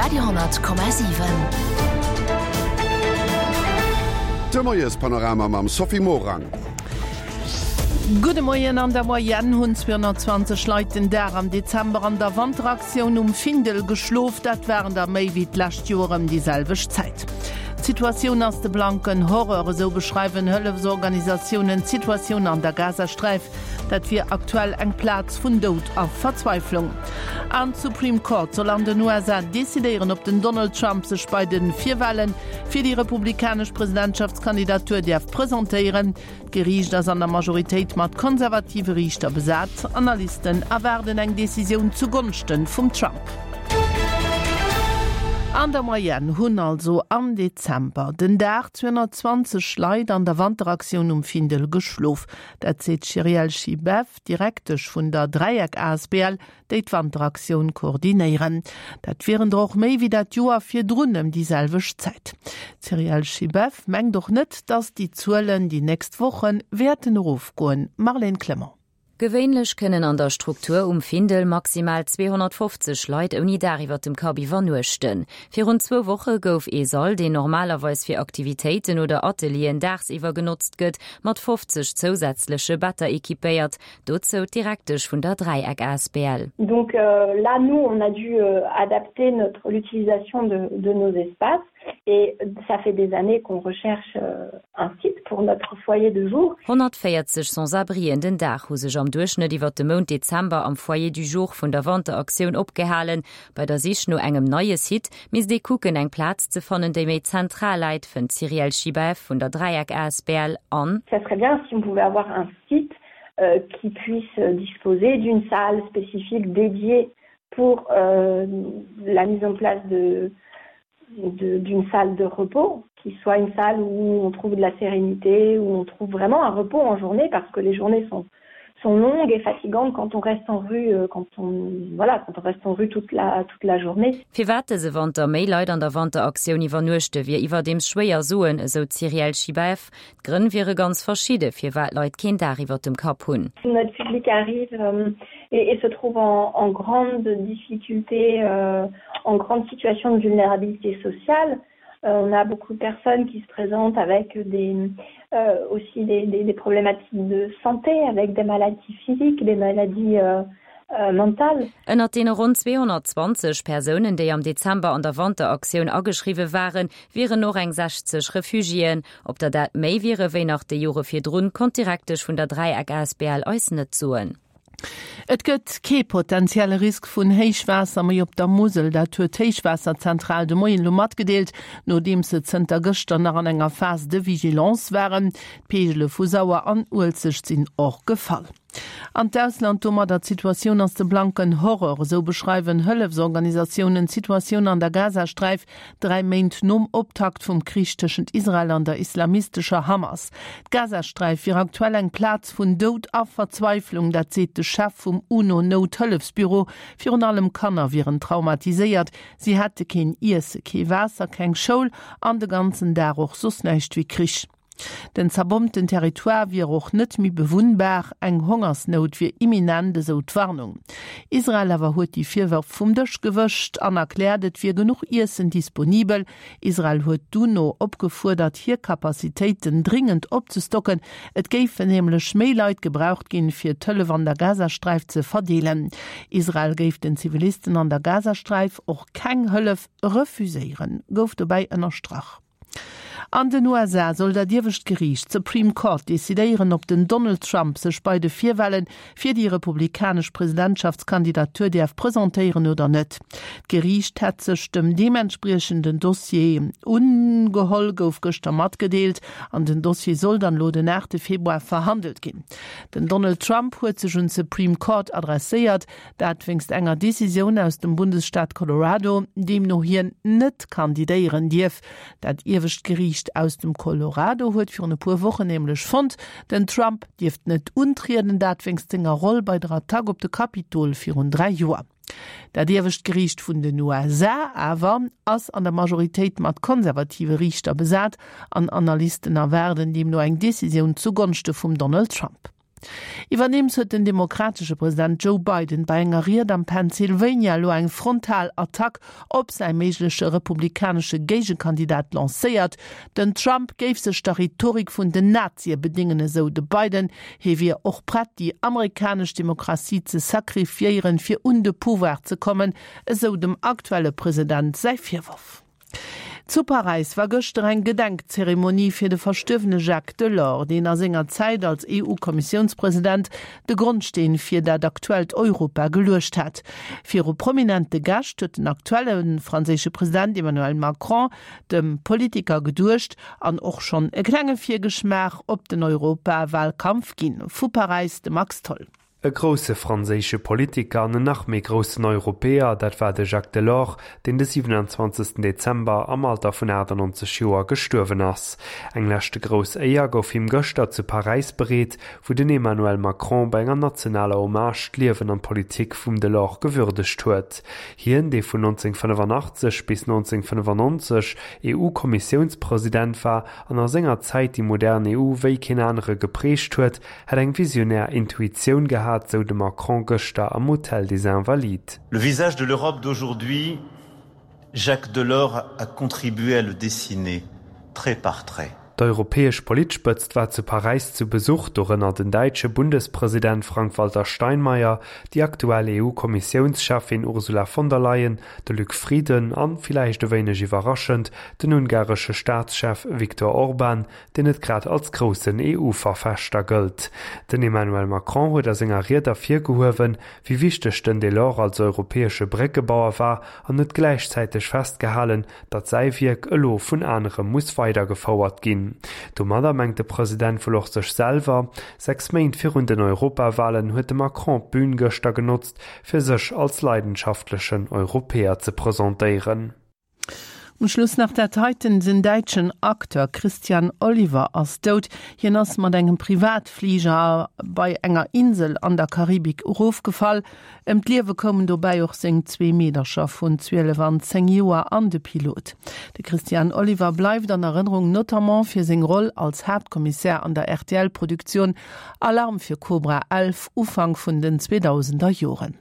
Radio,7. De Moiespanorama mam Sophie Morang. Gudde Moien, An der Moyenne hunn 220 Leit den Dag am Dezember an der Wanteraktioun um Findel geschlof. Dat waren der méi wéi d'lescht Joer ëm déi selwecht Zäit. D'Situatioun ass de blanken Horreur, esou beschreiwen Hëllefsorganisatiounen d'Situatioun an der Gazasträif. Dat wier aktuell eng Plaz vun Doud a Verzweiflung. An d'Supreme Court soll an den USA decidéieren, ob den Donald Trump sech bei de Virwale fir déi republikanesch Presidentschaftskandidatur däerf presentéieren. D'Geriicht ass an der Majoritéit mat konservative Riichter besat. Analysten erwaarden eng Decisioun zu Gonschte vum Trump. An der Moyenne hunn also am Dezember den Dag 220 Leit an der Wanteraktioun um Findel geschlof. Dat seet d'Cyrielle Schibeff, Direktesch vun der Dräieck asbl, déi d'Wanteraktioun koordinéieren. Dat wieren der och méi wéi dat Joer virdrun ëm déi selwecht Zäit. D'Cyrielle Schibeff mengt och net, datt déi Zuelen déi nächst Woche wäerten erofgoen. Marlène Clement. Gewéinlech kënnen an der Struktur um Findel maximal 250 Leit ouni Daach iwwer dem Kapp iwwernuechten. Virun zwou Woche gouf ee Sall, deen normalerweis fir Aktivitéiten oder Atelieren daagsiwwer genotzt gëtt, mat 50 zousätzleche Better equipéiert. Dozou d'Direktesch vun der Dräieck asbl. Donc là, nous, on a dû adapter notre l'utilisation de de nos espaces et ça fait des années qu'on recherche un site pour notre foyer de jour. 140 Sans-abrien den Dag hu sech am Duerchschnëtt iwwer de Mount Dezember am Foyer du jour vun der Wanteraktioun opgehalen. Bei der Sich no engem neie Site misst ee kucken, eng Plaz ze fannen, déi méi zentral läit, fënnt d'Cyrielle Schibaeff vun der Dräieck asbl. An. Ça serait bien si on pouvait avoir un site qui puisse disposer d'une salle spécifique dédiée pour euh, la mise en place de d'une salle de repos qui soit une salle où on trouve de la sérénité où on trouve vraiment un repos en journée parce que les journées sont sont longues et fatigantes quand on reste en rue euh, quand on voilà quand on reste en rue toute la toute la journée. Firwat dëse Wanter méi Leit an der Wanteraktioun iwwernuechte wier iwwerdeems schwéier soen, esou d'Cyrielle Schibaeff. D'Grënn wiere ganz verschidde firwat Leit keen Daach iwwer dem Kapp hunn. Notre public arrive euh, et, et se trouve en, en grande difficulté euh, en grande situation de vulnérabilité sociale. Euh, on a beaucoup de personnes qui se présentent avec des, euh, aussi des, des, des problématiques de santé, avec des maladies physiques, des maladies euh, euh, mentales. Ënnert deene ronn 220 Persounen, déi am Dezember an der Wanteraktioun ageschriwwe waren, wieren och eng 60 Refugiéen. Ob der dat méi wiere wéi nach déi Jore virdrun, konnt d'Direktesch vun der Dräieck asbl eis net soen. Et gëtt kee potentielle Risk vun Héichwaasser méi op der Musel. Dat huet d'Héichwaasserzentral de Moien elo matgedeelt, nodeems se zënter gëschter nach an enger Phase de vigilance waren. D'Peegele vu Sauer an Uelzecht sinn och gefall. An d'Ausland domadder, D'Situatioun ass de blanken Horror, esou beschreiwen Hëllefsorganisatiounen d'Situatioun an der Gazasträif, dräi Méint nom Optakt vum Krich tëschent Israel an der islamistescher Hamas. D'Gazasträif wier aktuell eng Plaz vun Doud a Verzweiflung, dat seet de Chef vum UNO-Nouthëllefsbüro. Virun allem Kanner wieren traumatiséiert, si hätte keen Iesse, kee Waasser, keng Schoul an de ganzen Dag och soss näischt wéi Krich. Den zerbombten Territoire wier och net méi bewunnbar, eng Hongersnout wier imminent, esou d'Warnung. Israel awer huet déi Virwërf vum Dësch gewëscht an erkläert, et wier genuch Iessen disponibel. Israel huet d'UNO opgefuerdert, hir Capacitéiten dringend opzestocken. Et géifen nämlech méi Leit gebraucht ginn, fir d'Hëllef an der Gazasträif ze verdeelen. Israel géif den Zivilisten an der Gazasträif och keng Hëllef refuséieren, gouf dobäi ënnerstrach. An den USA soll dat iewescht Geriicht, d'Supreme Court, decidéieren, ob den Donald Trump sech bei de Virwale fir déi republikanesch Presidentschaftskandidatur däerf presentéieren oder net. D'Geriicht hätt sech dem deementspriechenden Dossier ungeholl, gouf gëschter matgedeelt. An den Dossier soll dann elo den 8 Februar verhandelt ginn. Den Donald Trump huet sech un d'Supreme Court adresséiert, Dat wéinst enger Decisioun aus dem Bundesstaat Colorado, deemno hien net kandidéieren dierf. Dat iewescht Geriicht aus dem Colorado huet virun e puer Wochen nämlech fonnt, den Trump dierft net untrieden, dat wéinst senger Roll bei der Attack op de Kapitol virun 3 Joer. Dat iewescht Geriicht vun den USA awer ass an der Majoritéit mat konservative Riichter besat an Analysten erwaarden deemno eng Decisioun zu Gonschte vum Donald Trump. Iwwerdeems huet den demokratesche President Joe Biden bei enger Ried am Pennsylvania elo eng frontal Attack op säi méigleche republikanesche Géigekandidat lancéiert. Den Trump géif sech der Rhetorik vun den Nazie bedéngen, esou de Biden. Hie wier och prett, déi amerikanesch Demokratie ze sacrifiéieren, fir un de Pouvoir ze kommen, esou dem aktuelle President säi Virworf. Zu Paräis war gëschter eng Gedenkzeremonie fir de verstuerwene Jacques Delors, deen a senger Zäit als EU-Kommissiounspresident de Grondsteen fir dat aktuellt Europa geluecht hat. Viru prominente Gäscht huet den aktuelle franséische President Emmanuel Macron dem Politiker geduecht an och schonn e klenge Virgeschmaach op den Europawalkampf ginn. Vu Paräis de Max Tholl. E grousse franséische Politiker an en nach méi groussen Europäer, dat war de Jacques Delors, deen de 27 Dezember am Alter vun 98 Joer gestuerwen ass. Eng leschte grouss Éier gouf him gëschter zu Paräis bereet, wou den Emmanuel Macron bei enger nationaler Hommage d'Liewen an d'Politik vum Delors gewürdegt huet. Hien, dee vun 1985 bis 1995 EU-Kommissiounspresident war an a senger Zäit déi modern EU wéi keen anere geprägt huet, Hätt eng visionär Intuitioun gehat, sou de Macron gëschter am Hôtel des Invalides. Le visage de l'Europe d'aujourd'hui, Jacques Delors a contribué à le dessiner, trait par trait. D'europäesch Politspëtzt war zu Paräis zu Besuch, dorënner den däitsche Bundespresident Frank-Walter Steinmeier, déi aktuell EU-Kommissiounscheffin Ursula von der Leyen, de Luc Frieden an, villäicht e wéineg iwwerraschend, den ungaresche Staatschef Viktor Orban, deen net grad als groussen EU-Verfechter gëllt. Den Emmanuel Macron huet a senger Ried ervirgehuewen, wéi wichteg den Delors als europäesche Bréckebauer war an huet gläichzäiteg festgehalen, datt säi Wierk elo vun anere muss weidergefouert ginn. Domadder mengt de President wuel och sech selwer. 6 Méint virun den Europawalen huet de Macron d'Bün gëschter genotzt, fir sech als leidenschaftlechen Europäer ze presentéieren. Um Schluss nach dat heiten, Den däitschen Acteur Christian Oliver ass dout. Hien ass mat engem Privatfliger bei enger Insel an der Karibik erofgefall. Ëm d'Liewe koumen dobäi och seng zwee Meedercher vun 12 an 10 Joer an de Pilot. De Christian Oliver bleift an Erënnerung notamment fir seng Roll als Haaptkommissär an der RTL-Produktioun Alarm für Cobra 11 Ufank vun den 2000er Joren.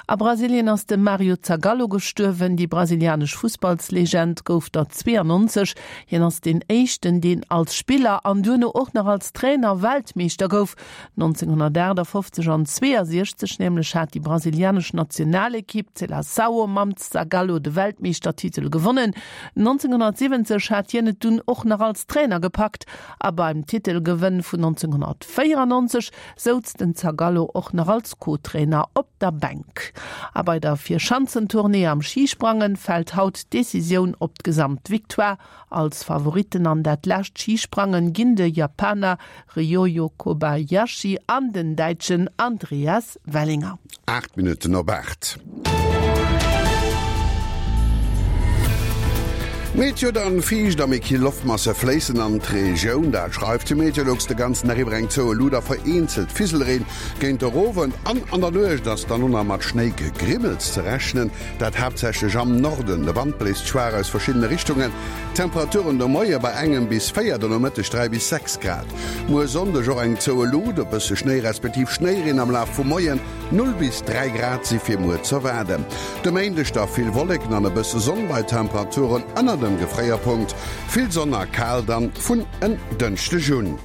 A Brasilien ass de Mario Zagallo gestuerwen. Déi brasilianesch Fussballslegend gouf der 92. Hien ass deen éischten, deen als Spiller an duerno och nach als Trainer Weltmeeschter gouf. 1958 an 62 nämlech hat déi brasilianesch Nationalekipp d'Seleção mam Zagallo de Weltmeeschtertitel gewonnen. 1970 hat hien et dunn och nach als Trainer gepackt a beim Titelgewënn vun 1994 souz den Zagallo och nach als Co-Trainer op der Bänk. A bei der Vierschanzentournée am Schisprangen fält haut d'Decisioun op d'Gesamtvictoire. Als Favoritten an dat lescht Schisprangen ginn de Japaner Ryoyu Kobayashi an den Däitschen Andreas Wellinger. 8 Minutten op 8. Meteo dann, Fiicht a méi kill Loftmasse fléissen an d'Regioun, dat schreift de Meteolux. De ganzen Dag iwwer eng zoue Luut a vereenzelt Fiselreen. Géint der Owend an an der Nuecht ass dann och nach mat Schnéigegrimmels ze rechnen, dat haaptsächlech am Norden. De Wand bléist schwaach aus verschiddene Richtungen. D'Temperaturen de Moie bei engem bis 4, de Nomëtteg 3 bis 6 Grad. Muer Sonndeg och eng zoue Luut, e bësse Schnéi respektiv Schnéireen am Laf vum Moien. 0 bis 3 Grad si fir muer z'erwaarden. De Méindeg da vill Wolleken an e bësse Sonn bei Temperaturen ënner dem Gefréierpunkt. Vill Sonn a kal dann vun en Dënschdeg un.